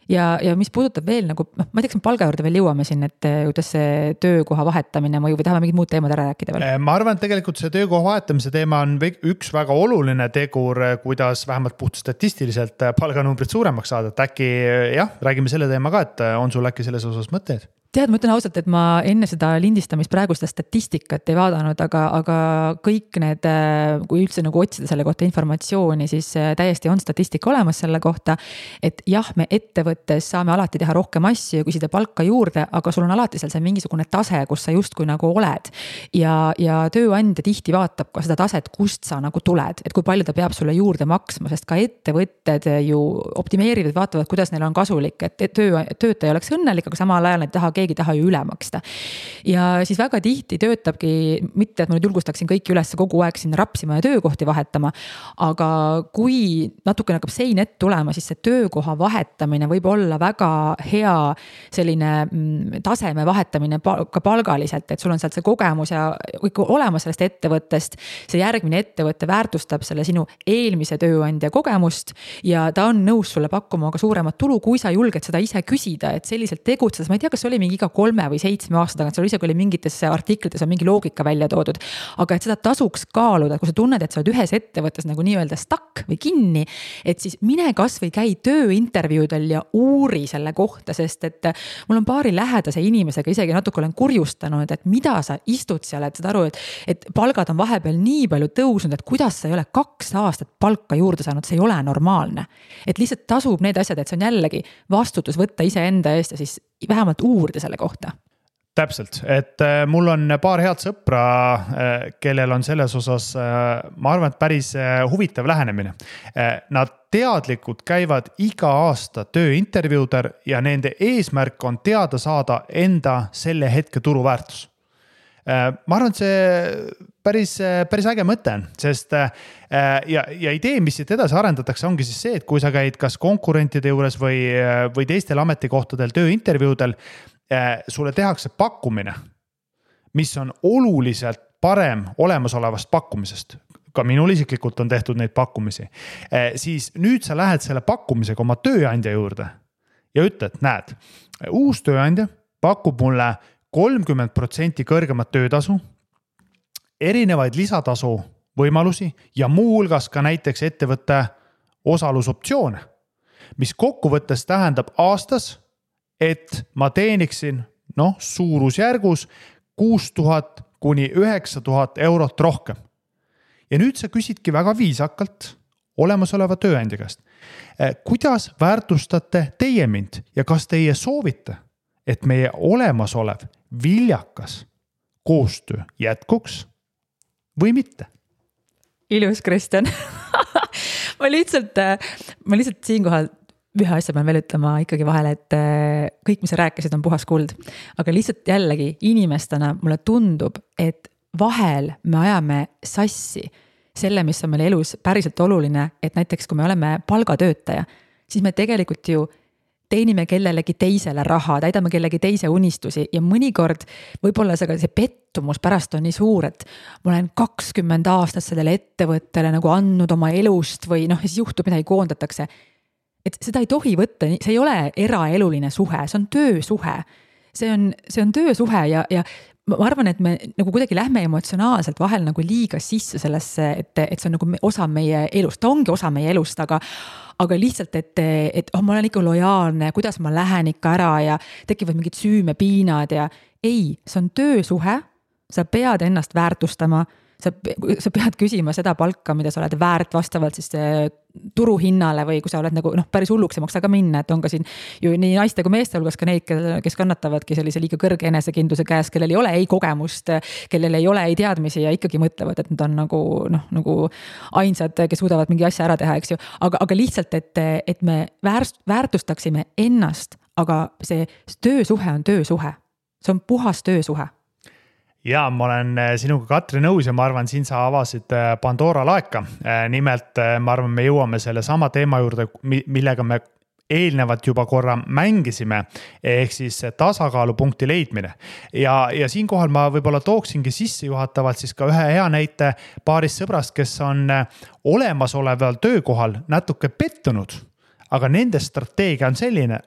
Ja mis puudutab veel ma ei tea, kas palga juurde veel jõuame siin, et kuidas see töökoha vahetamine mõju või tahame mingid muud teemad ära rääkida veel? Ma arvan, et tegelikult see töökoha vahetamise teema on üks väga oluline tegur, kuidas vähemalt puht statistiliselt palganumbrid suuremaks saada. Et äkki räägime selle teema ka, et on sul äkki selles osas mõtteid? tead, ma ütlen ausalt, et ma enne seda lindistamist praegu seda statistikat ei vaadanud, aga kõik need, kui üldse nagu otsida selle kohta informatsiooni, siis täiesti on statistika olemas selle kohta, et jah, me ettevõttes saame alati teha rohkem asju ja küsida palka juurde, aga sul on alati seal see mingisugune tase, kus sa justkui nagu oled. Ja tööandja tihti vaatab ka seda taset, kust sa nagu tuled, et kui palju ta peab sulle juurde maksma, sest ka ettevõtted ju optimeerivad, vaatavad, kuidas neil on kasulik, et töötaja oleks õnnelik, aga samal ajal nad keegi taha ju üle maksta. Ja siis väga tihti töötabki, mitte et ma nüüd julgustaksin kõiki üles kogu aeg sinna rapsima ja töökohti vahetama, aga kui natukene hakkab sein ette tulema, siis see töökoha vahetamine võib olla väga hea selline taseme vahetamine ka palgaliselt, et sul on sealt see kogemus ja kõik olemas sellest ettevõttest, see järgmine ettevõtte väärtustab selle sinu eelmise tööandja kogemust ja ta on nõus sulle pakkuma ka suuremat tulu, kui sa julged seda ise küsida, et selliselt tegutsedes, ma ei tea, kas oli mingi iga 3 või 7 aasta tagant, seal isegi oli mingites artiklites on mingi loogika välja toodud, aga et seda tasuks kaaluda, kui sa tunned, et sa oled ühes ettevõttes nagu nii-öelda stuck või kinni, et siis mine kas või käi tööintervjuudel ja uuri selle kohta, sest et mul on paari lähedase inimesega isegi natuke olen kurjustanud, et mida sa istud seal, et saad aru, et palgad on vahepeal nii palju tõusnud, et kuidas sa ei ole 2 aastat palka juurde saanud, see ei ole normaalne. Et lihtsalt tasub need asjad, et see on jällegi vastutus võtta iseenda eest ja siis vähemalt uurida selle kohta. Täpselt, et mul on paar head sõpra, kellel on selles osas, ma arvan, et päris huvitav lähenemine. Nad teadlikult käivad iga aasta tööintervjuudel ja nende eesmärk on teada saada enda selle hetke turuväärtus. Ma arvan, et see päris äge mõte on, sest ja idee, mis siit edasi arendatakse, ongi siis see, et kui sa käid kas konkurentide juures või teistel ametikohtadel tööintervjuudel, sulle tehakse pakkumine, mis on oluliselt parem olemasolevast pakkumisest. Ka minul isiklikult on tehtud neid pakkumisi. Siis nüüd sa lähed selle pakkumisega oma tööandja juurde ja ütled, näed, uus tööandja pakub mulle 30% kõrgemat töötasu, erinevaid lisatasu võimalusi ja muu hulgas ka näiteks ettevõtte osalusoptsioone, mis kokkuvõttes tähendab aastas, et ma teeniksin suurusjärgus 6000 kuni 9000 eurot rohkem. Ja nüüd sa küsidki väga viisakalt olemasoleva tööandja käest. Kuidas väärtustate teie mind ja kas teie soovite, et meie olemasolev viljakas koostöö jätkuks või mitte? Ilus, Kristjan. ma lihtsalt siinkohal ühe asja pean veel ütlema ikkagi vahele, et kõik, mis sa rääkisid, on puhas kuld. Aga lihtsalt jällegi inimestena mulle tundub, et vahel me ajame sassi selle, mis on meil elus päriselt oluline, et näiteks kui me oleme palgatöötaja, siis me tegelikult ju teenime kellelegi teisele raha, täidame kellegi teise unistusi ja mõnikord võib-olla see pettumus pärast on nii suur, et ma olen 20 aastat sellele ettevõttele nagu andnud oma elust või siis juhtub midagi, koondatakse. Et seda ei tohi võtta, see ei ole eraeluline suhe, see on töösuhe. See on töösuhe ja ma arvan, et me nagu kuidagi lähme emotsionaalselt vahel nagu liiga sisse sellesse, et see on nagu osa meie elust, ta ongi osa meie elust, aga lihtsalt, et ma olen ikka lojaalne, kuidas ma lähen ikka ära ja tekivad mingid süümepiinad ja ei, see on töösuhe, sa pead ennast väärtustama, sa pead küsima seda palka, mida sa oled väärt vastavalt siis turuhinnale või kui sa oled nagu päris hulluks ei maksa ka minna, et on ka siin ju nii naiste kui meeste hulgas ka neid, kes kannatavadki sellise liiga kõrge enesekindluse käes, kellel ei ole ei kogemust, kellel ei ole ei teadmisi ja ikkagi mõtlevad, et nad on nagu ainsad, kes suudavad mingi asja ära teha, eks ju, aga lihtsalt, et me väärtustaksime ennast, aga see töösuhe on töösuhe, see on puhas töösuhe. Ja ma olen sinuga Katri nõus ja ma arvan, siin sa avasid Pandora laeka. Nimelt ma arvan, me jõuame selle sama teema juurde, millega me eelnevalt juba korra mängisime, ehk siis tasakaalupunkti leidmine. Ja siinkohal ma võib-olla tooksingi sissejuhatavalt siis ka ühe hea näite paarist sõbrast, kes on olemasoleval töökohal natuke pettunud, aga nende strateegia on selline,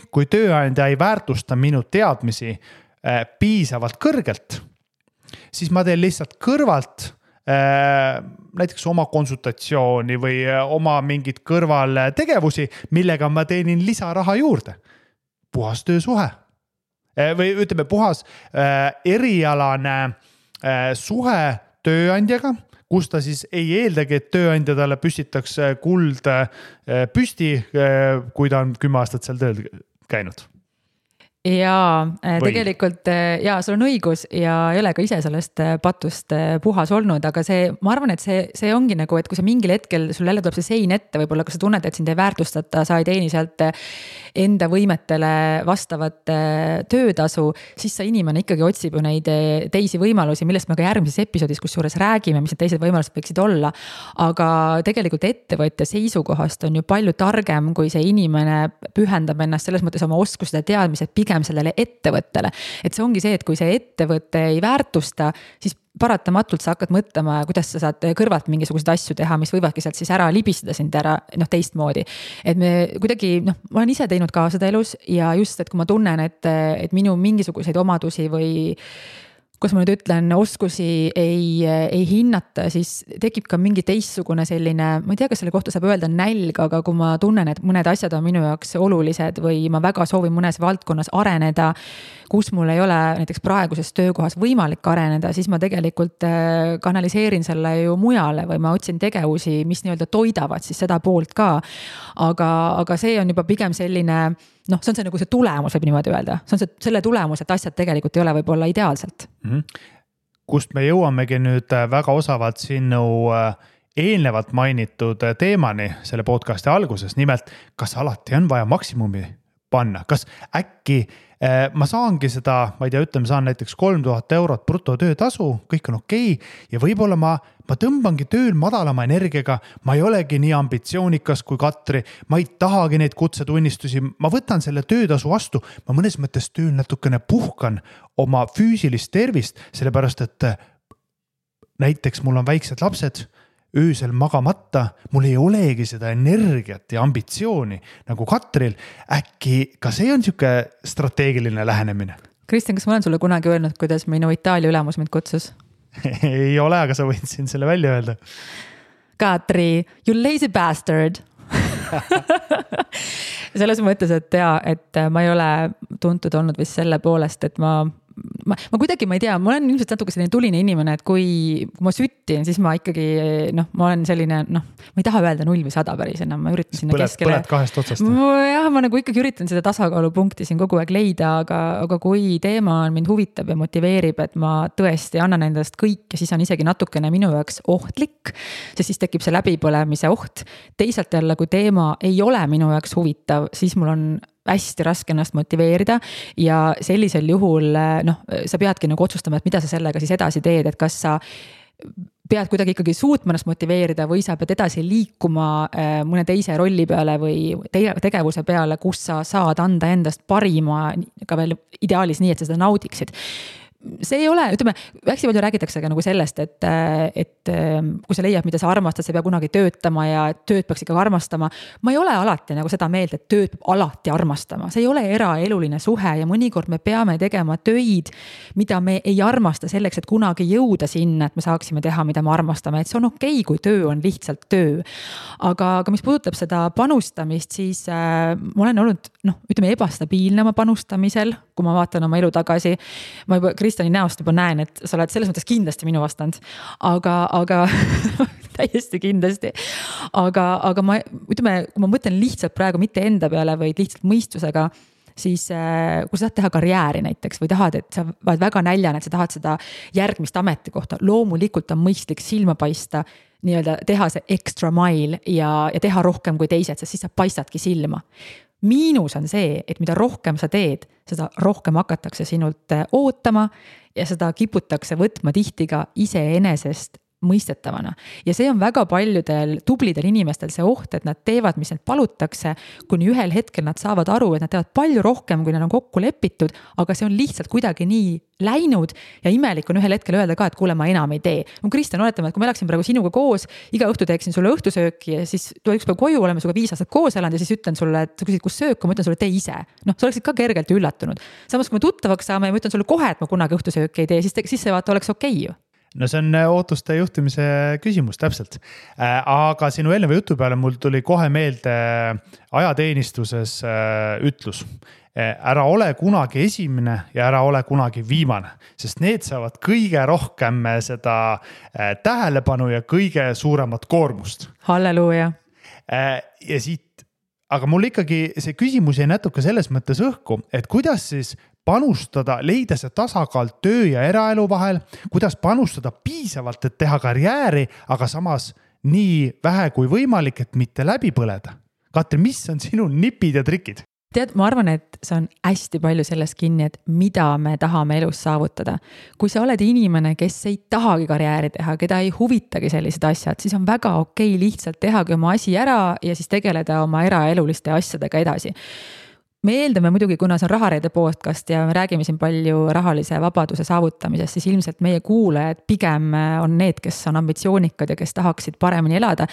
kui tööandja ei väärtusta minu teadmisi piisavalt kõrgelt, siis ma teen lihtsalt kõrvalt näiteks oma konsultatsiooni või oma mingid kõrvaltegevusi, millega ma teenin lisaraha juurde. Puhas töösuhe. või ütleme puhas erialane suhe tööandjaga, kus ta siis ei eeldagi, et tööandja talle püstitaks kuld püsti, kui ta on 10 aastat seal tööl käinud. Ja tegelikult sul on õigus ja ei ole ka ise sellest patust puhas olnud, aga ma arvan, et see ongi nagu, et kui sa mingil hetkel sul jälle tuleb see sein ette, võib-olla kui sa tunned, et sind ei väärtustata, sa ei teeni sealt enda võimetele vastavat töötasu, siis sa inimene ikkagi otsib ju neid teisi võimalusi, millest me ka järgmises episoodis kusjuures räägime, mis need teised võimalused võiksid olla. Aga tegelikult ettevõtja seisukohast on ju palju targem, kui see inimene pühendab ennast selles mõttes oma oskused ja teadmised pigem sellele ettevõttele. Et see ongi see, et kui see ettevõte ei väärtusta, siis paratamatult sa hakkad mõtlema, kuidas sa saad kõrvalt mingisuguseid asju teha, mis võivadki sealt siis ära libistada sind ära teistmoodi. Et me kuidagi, ma olen ise teinud ka seda elus ja just, et kui ma tunnen, et minu mingisuguseid omadusi või kus ma nüüd ütlen, oskusi ei hinnata, siis tekib ka mingi teistsugune selline, ma ei tea, kas selle kohta saab öelda nälg, aga kui ma tunnen, et mõned asjad on minu jaoks olulised või ma väga soovin mõnes valdkonnas areneda, kus mul ei ole näiteks praeguses töökohas võimalik areneda, siis ma tegelikult kanaliseerin selle ju mujale või ma otsin tegevusi, mis nii-öelda toidavad siis seda poolt ka. Aga see on juba pigem selline, see on see nagu see tulemus, võib niimoodi öelda. See on selle tulemus, et asjad tegelikult ei ole võib-olla ideaalselt. Kust me jõuamegi nüüd väga osavalt sinu eelnevalt mainitud teemani selle podcasti alguses. Nimelt, kas alati on vaja maksimumi panna? Kas äkki ma saangi seda, ma ei tea, ütleme, saan näiteks 3000 eurot brutotöötasu, kõik on okei, ja võib-olla ma tõmbangi tööl madalama energiaga, ma ei olegi nii ambitsioonikas kui Katri, ma ei tahagi neid kutsetunnistusi, ma võtan selle töötasu vastu, ma mõnes mõttes tööl natukene puhkan oma füüsilist tervist, sellepärast et näiteks mul on väiksed lapsed, öösel magamata, mul ei olegi seda energiat ja ambitsiooni nagu Katril. Äkki ka see on siuke strateegiline lähenemine? Kristjan, kas ma olen sulle kunagi öelnud, kuidas minu Itaalia ülemus mind kutsus? Ei ole, aga sa võid siin selle välja öelda. Katri, you lazy bastard. Selles mõttes, et ma ei ole tuntud olnud vist selle poolest, et ma kuidagi, ma ei tea, ma olen ilmselt natuke selline tuline inimene, et kui ma süttin, siis ma ikkagi, ma olen selline, ma ei taha öelda 0 või 100 päris enam, ma üritan sinna keskele. Põled kahest otsast. Jah, ma nagu ikkagi üritan seda tasakaalupunkti siin kogu aeg leida, aga kui teema mind huvitab ja motiveerib, et ma tõesti annan endast kõik ja siis on isegi natukene minu jaoks ohtlik, siis tekib see läbipõlemise oht. Teisalt jälle, kui teema ei ole minu jaoks huvitav, siis mul on hästi raske ennast motiveerida ja sellisel juhul sa peadki nagu otsustama, et mida sa sellega siis edasi teed, et kas sa pead kuidagi ikkagi suutma ennast motiveerida või sa pead edasi liikuma mõne teise rolli peale või tegevuse peale, kus sa saad anda endast parima ka veel ideaalis nii, et sa seda naudiksid. See ei ole, ütleme, hästi palju räägitakse ka nagu sellest, et kui sa leiad, mida sa armastad, sa peab kunagi töötama ja tööd peaks ikka armastama. Ma ei ole alati nagu seda meelt, et tööd peab alati armastama. See ei ole eraeluline suhe ja mõnikord me peame tegema töid, mida me ei armasta selleks, et kunagi jõuda sinna, et me saaksime teha, mida me armastame. Et see on okei, kui töö on lihtsalt töö. Aga mis puudutab seda panustamist, siis ma olen olnud, ütleme, ebastabiilne oma panustamisel, kui ma vaatan oma elu tagasi. Ma juba Kristjani näost juba näen, et sa oled selles mõttes kindlasti minu vastand, aga täiesti kindlasti. Aga ma, ütleme, kui ma mõtlen lihtsalt praegu mitte enda peale, vaid lihtsalt mõistusega, siis kui sa tahad teha karjääri näiteks või tahad, et sa oled väga näljane, et sa tahad seda järgmist ametikohta, loomulikult on mõistlik silma paista, nii-öelda teha see extra mile ja teha rohkem kui teised, sest siis sa paistadki silma. Miinus on see, et mida rohkem sa teed, seda rohkem hakatakse sinult ootama ja seda kiputakse võtma tihti ka iseenesest mõistetavana. Ja see on väga paljudel tublidel inimestel see oht, et nad teevad, mis need palutakse, kuni ühel hetkel nad saavad aru, et nad teevad palju rohkem, kui nad on kokku lepitud, aga see on lihtsalt kuidagi nii läinud ja imelik on ühel hetkel öelda ka, et kuule, ma enam ei tee. Kristjan, oletame, et kui ma läksin praegu sinuga koos, iga õhtu teeksin sulle õhtusööki ja siis tuleb üks päev koju, oleme suga 5 aastat koos elanud ja siis ütlen sulle, et sa küsid, kus söök, ma ütlen sulle, tee ise. Sa oleksid ka kergelt üllatunud. Samas, kui me tuttavaks saame ja ma ütlen sulle kohe, et ma kunagi õhtusööki ei tee, siis see vaata oleks okei ju. no see on ootuste juhtimise küsimus, täpselt. Aga sinu eelneva jutu peale mul tuli kohe meelde ajateenistuses ütlus. Ära ole kunagi esimene ja ära ole kunagi viimane, sest need saavad kõige rohkem seda tähelepanu ja kõige suuremat koormust. Halleluuja. Ja siit, aga mul ikkagi see küsimus jäi natuke selles mõttes õhku, et kuidas siis panustada, leida see tasakaal töö ja eraelu vahel, kuidas panustada piisavalt, et teha karjääri, aga samas nii vähe kui võimalik, et mitte läbi põleda. Katri, mis on sinu nipid ja trikid? Tead, ma arvan, et see on hästi palju selles kinni, et mida me tahame elus saavutada. Kui sa oled inimene, kes ei tahagi karjääri teha, keda ei huvitagi sellised asjad, siis on väga okei lihtsalt tehagi oma asi ära ja siis tegeleda oma eraeluliste asjadega edasi. Me eeldame muidugi, kuna see on Rahareede podcast ja me räägime siin palju rahalise vabaduse saavutamisest, siis ilmselt meie kuulajad pigem on need, kes on ambitsioonikad ja kes tahaksid paremini elada.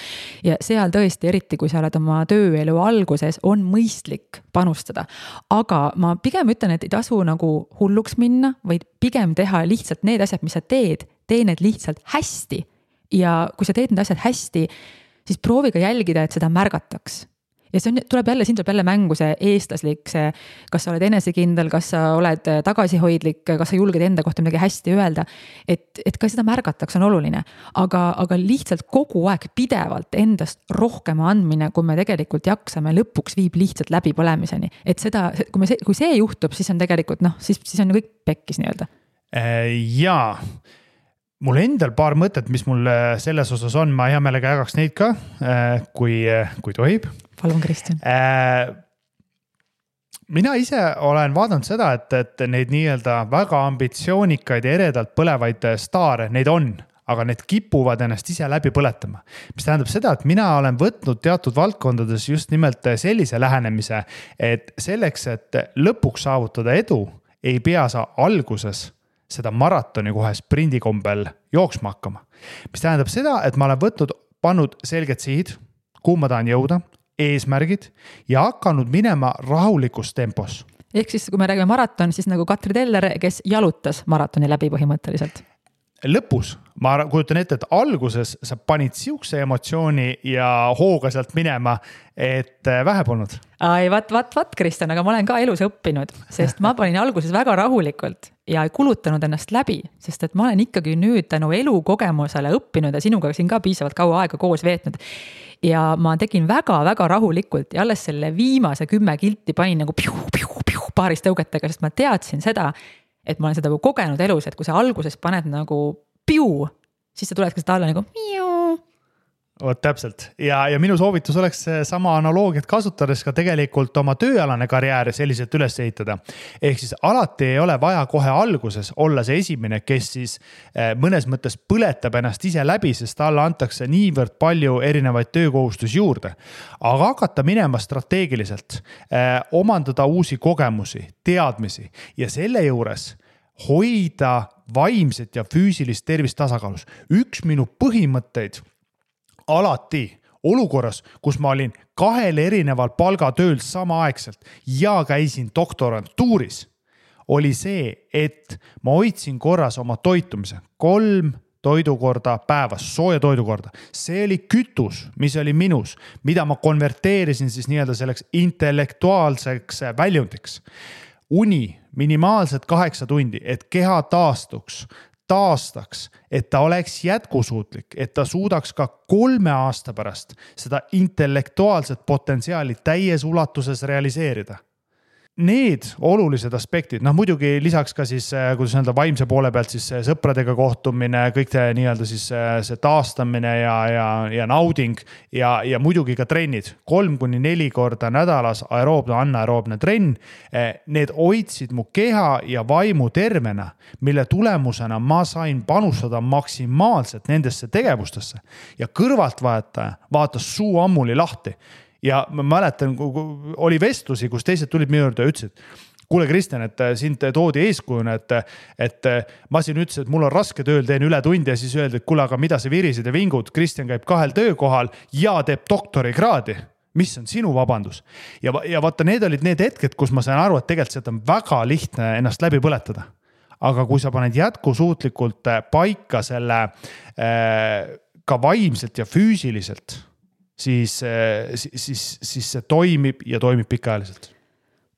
Ja seal tõesti, eriti kui sa oled oma tööelu alguses, on mõistlik panustada. Aga ma pigem ütlen, et ei tasu nagu hulluks minna, vaid pigem teha lihtsalt need asjad, mis sa teed, tee need lihtsalt hästi. Ja kui sa teed need asjad hästi, siis proovi ka jälgida, et seda märgataks. Ja siin tuleb jälle mängu see eestlaslik, see, kas sa oled enesekindel, kas sa oled tagasihoidlik, kas sa julged enda kohta midagi hästi öelda, et ka seda märgataks on oluline. Aga lihtsalt kogu aeg pidevalt endast rohkem andmine, kui me tegelikult jaksame, lõpuks viib lihtsalt läbi põlemiseni. Et seda, kui see juhtub, siis on tegelikult, siis on kõik pekkis nii-öelda. Jaa. Mul endal paar mõtet, mis mul selles osas on, ma hea meelega jagaks neid ka, kui tohib. Palun, Kristjan. Mina ise olen vaadanud seda, et neid nii-öelda väga ambitsioonikaid ja eredalt põlevaid staare, neid on, aga need kipuvad ennast ise läbi põletama. Mis tähendab seda, et mina olen võtnud teatud valdkondades just nimelt sellise lähenemise, et selleks, et lõpuks saavutada edu, ei pea sa alguses seda maratoni kohe sprindikombel jooksma hakkama. Mis tähendab seda, et ma olen pannud selged sihid, kuhu ma tahan jõuda, eesmärgid ja hakanud minema rahulikus tempos. Ehk siis, kui me räägime maraton, siis nagu Katri Teller, kes jalutas maratoni läbi põhimõtteliselt. Lõpus, ma kujutan ette, et alguses sa panid siukse emotsiooni ja hooga sealt minema, et vähe polnud. Ai, vat, Kristjan, aga ma olen ka elus õppinud, sest ma panin alguses väga rahulikult ja ei kulutanud ennast läbi, sest et ma olen ikkagi nüüd tänu elukogemusele õppinud ja sinuga siin ka piisavalt kaua aega koos veetnud. Ja ma tegin väga-väga rahulikult ja alles selle viimase 10 kilti panin nagu paaris tõugetega, sest ma teadsin seda, et ma olen seda kogenud elus, et kui sa alguses paned nagu piu, siis sa tuled ka seda alla nagu miu. Oot, täpselt. Ja minu soovitus oleks sama analoogiat kasutades ka tegelikult oma tööalane karjääri selliselt üles ehitada. Ehk siis alati ei ole vaja kohe alguses olla see esimene, kes siis mõnes mõttes põletab ennast ise läbi, sest talle antakse niivõrd palju erinevaid töökohustusi juurde. Aga hakata minema strateegiliselt, omandada uusi kogemusi, teadmisi ja selle juures hoida vaimset ja füüsilist tervist tasakaalus. Üks minu põhimõtteid alati olukorras, kus ma olin 2 erineval palgatööl samaaegselt ja käisin doktorantuuris, oli see, et ma hoidsin korras oma toitumise 3 toidukorda päevas, sooja toidukorda. See oli kütus, mis oli minus, mida ma konverteerisin siis nii-öelda selleks intellektuaalseks väljundiks. Uni minimaalselt 8 tundi, et keha taastaks, et ta oleks jätkusuutlik, et ta suudaks ka 3 aasta pärast seda intellektuaalset potentsiaali täies ulatuses realiseerida. Need olulised aspektid, muidugi lisaks ka siis, kuidas öelda, vaimse poole pealt siis sõpradega kohtumine, kõik nii-öelda siis see taastamine ja nauding ja muidugi ka trennid. 3-4 korda nädalas aeroobne, anaeroobne trenn. Need hoidsid mu keha ja vaimu tervena, mille tulemusena ma sain panustada maksimaalselt nendesse tegevustesse. Ja kõrvaltvaataja vaatas suu ammuli lahti. Ja ma mäletan, oli vestlusi, kus teised tulid minu juurde ja ütlesid, kuule Kristjan, et sind toodi eeskujuna, et ma siin ütlesin, et mul on raske tööl, teen üle tundi ja siis öeldi, et kuule, aga mida sa virisid ja vingud, Kristjan käib 2 töökohal ja teeb doktorikraadi. Mis on sinu vabandus? Ja vaata, need olid need hetked, kus ma sain aru, et tegelikult seda on väga lihtne ennast läbi põletada. aga kui sa paned jätkusuutlikult paika selle ka vaimselt ja füüsiliselt, siis see toimib ja toimib pikaajaliselt.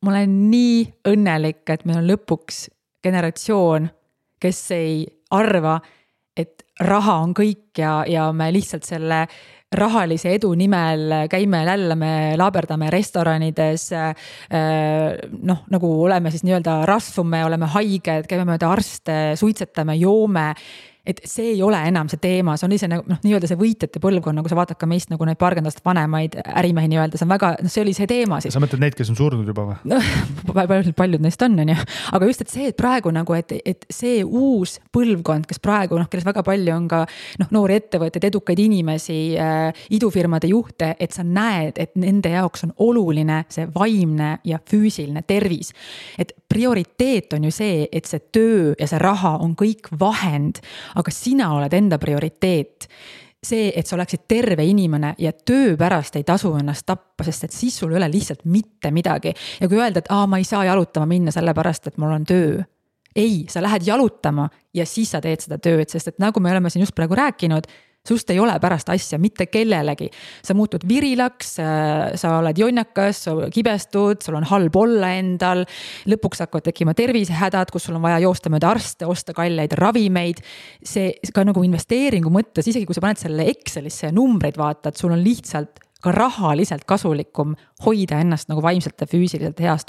Ma olen nii õnnelik, et meil on lõpuks generatsioon, kes ei arva, et raha on kõik ja me lihtsalt selle rahalise edu nimel käime lällame, laaberdame restoranides, nagu oleme siis nii-öelda rasvume, oleme haiged, käime mööda arste, suitsetame, joome. Et see ei ole enam see teema, see on ise nii-öelda see võitjate põlvkond, nagu sa vaatad ka meist nagu neid paarkondast vanemaid ärimehi nii-öelda, see on väga, see oli see teema siis. Sa mõtled neid, kes on surnud juba või? Paljud neist on, aga just, et see, et praegu nagu, et see uus põlvkond, kes praegu, kelles väga palju on ka noori ettevõtteid, edukaid inimesi, idufirmade juhte, et sa näed, et nende jaoks on oluline see vaimne ja füüsiline tervis. Et prioriteet on ju see, et see töö ja see raha on kõik vahend, aga sina oled enda prioriteet. See, et sa oleksid terve inimene ja töö pärast ei tasu ennast tappa, sest et siis sul ei ole lihtsalt mitte midagi. Ja kui öelda, et ma ei saa jalutama minna selle pärast, et mul on töö. Ei, sa lähed jalutama ja siis sa teed seda tööd, sest et nagu me oleme siin just praegu rääkinud, sust ei ole pärast asja mitte kellelegi. Sa muutud virilaks, sa oled jonnakas, sa kibestud, sul on halb olla endal, lõpuks hakkavad tekkima tervisehädad, kus sul on vaja joosta mööda arste, osta kalleid ravimeid. See ka nagu investeeringu mõttes, isegi kui sa paned selle Excelisse ja numbreid vaatad, sul on lihtsalt ka rahaliselt kasulikum hoida ennast nagu vaimselt ja füüsiliselt heas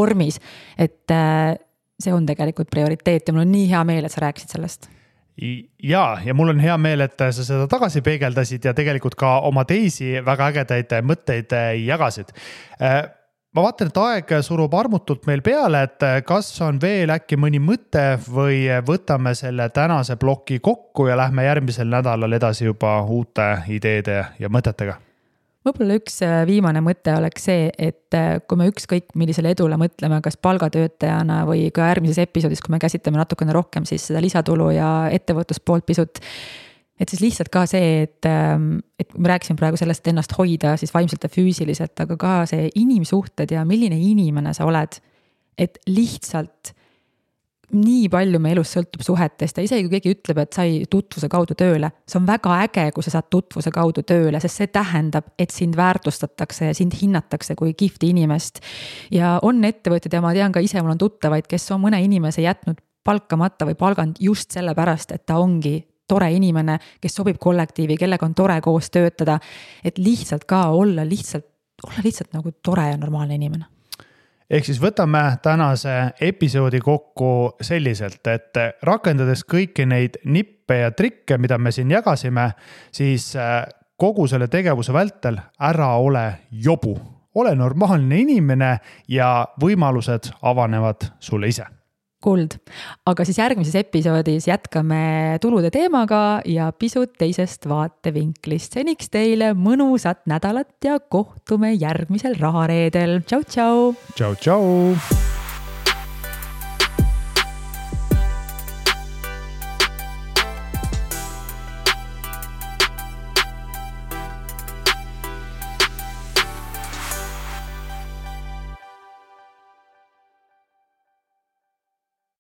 vormis. Et see on tegelikult prioriteet ja mul on nii hea meel, et sa rääkisid sellest. Ja mul on hea meel, et sa seda tagasi peegeldasid ja tegelikult ka oma teisi väga ägedaid mõtteid jagasid. Ma vaatan, et aeg surub armutult meil peale, et kas on veel äkki mõni mõte või võtame selle tänase ploki kokku ja lähme järgmisel nädalal edasi juba uute ideede ja mõtetega. Võib-olla üks viimane mõte oleks see, et kui me ükskõik millisele edule mõtleme, kas palgatöötajana või ka järgmises episoodis, kui me käsitleme natukene rohkem siis seda lisatulu ja ettevõtluspoolt pisut, et siis lihtsalt ka see, et me rääkisime praegu sellest ennast hoida siis vaimselt ja füüsiliselt, aga ka see inimsuhted ja milline inimene sa oled, et lihtsalt nii palju me elus sõltub suhetest ja isegi kui keegi ütleb, et sai tutvuse kaudu tööle, see on väga äge, kui sa saad tutvuse kaudu tööle, sest see tähendab, et sind väärtustatakse ja sind hinnatakse kui kihvti inimest. Ja on ettevõtted ja ma tean ka ise, mul on tuttavaid, kes on mõne inimese jätnud palkamata või palganud just selle pärast, et ta ongi tore inimene, kes sobib kollektiivi, kellega on tore koos töötada, et lihtsalt ka olla lihtsalt nagu tore ja normaalne inimene. Ehk siis võtame tänase episoodi kokku selliselt, et rakendades kõiki neid nippe ja trikke, mida me siin jagasime, siis kogu selle tegevuse vältel ära ole jobu. Ole normaalne inimene ja võimalused avanevad sulle ise. Kuld. Aga siis järgmises episoodis jätkame tulude teemaga ja pisut teisest vaatevinklist. Seniks teile mõnusat nädalat ja kohtume järgmisel rahareedel. Tšau, tšau! Tšau, tšau!